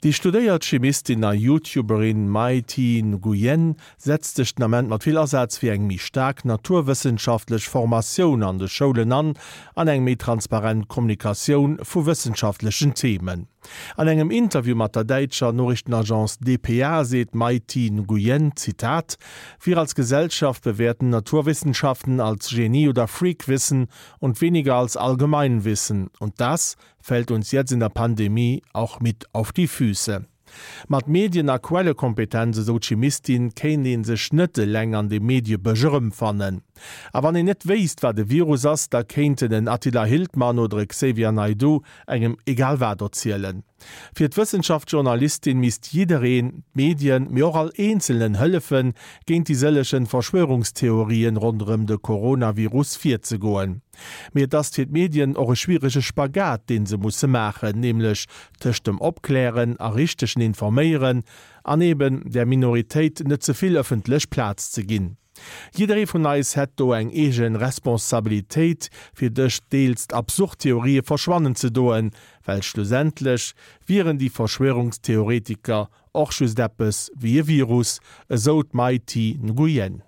Déi studéiert Chimistin a YouTuberin Mai Thi Nguyen setzt sech den Ament mat vill Asaz fir eng méi staark naturwëssenschaftlech Formatioun an de Schoulen an an eng méi transparent Kommunikatioun vu wëssenschaftlechen Themen. An engem Interview mat der däitscher Noriichtenagence dpa seet d'Mai Thi Nguyen, Zitat, Wir als Gesellschaft bewerten Naturwissenschaften als Genie oder Freakwissen und weniger als Allgemeinwissen. Und das fällt uns jetzt in der Pandemie auch mit auf die Füße. Mat Medien a Quellekompetenz, esou d'Chimistin, kéint ee sech net eleng an dem Mediebësch erëmfannen. A wann een net wéisst, wat e Virus ass, da kéinten en Attila Hildmann oder e Xavier Naidoo engem egal wat erzielen. Fir d'Wëssenschaftsjournalistin misst jiddereen, d'Medien, mee och all Eenzelnen hëllefen, géint déi sëllegen Verschwörungstheorien ronderëm de Coronavirus virzegoen. Mee et ass fir d'Medien och e schwierege Spagat, dee se musse maachen, nämlech tëscht dem Opklären a richtegen Informéieren an eben der Minoritéit net ze vill ëffentlech Plaz ze ginn. Jidderee vun eis hätt do eng eege Responsabilitéit, fir dës deels absurd Theorië verschwannen ze doen, well schlussendlech wieren déi Verschwörungstheoretiker och just eppes wéi e Virus, esou d'Mai Thi Nguyen.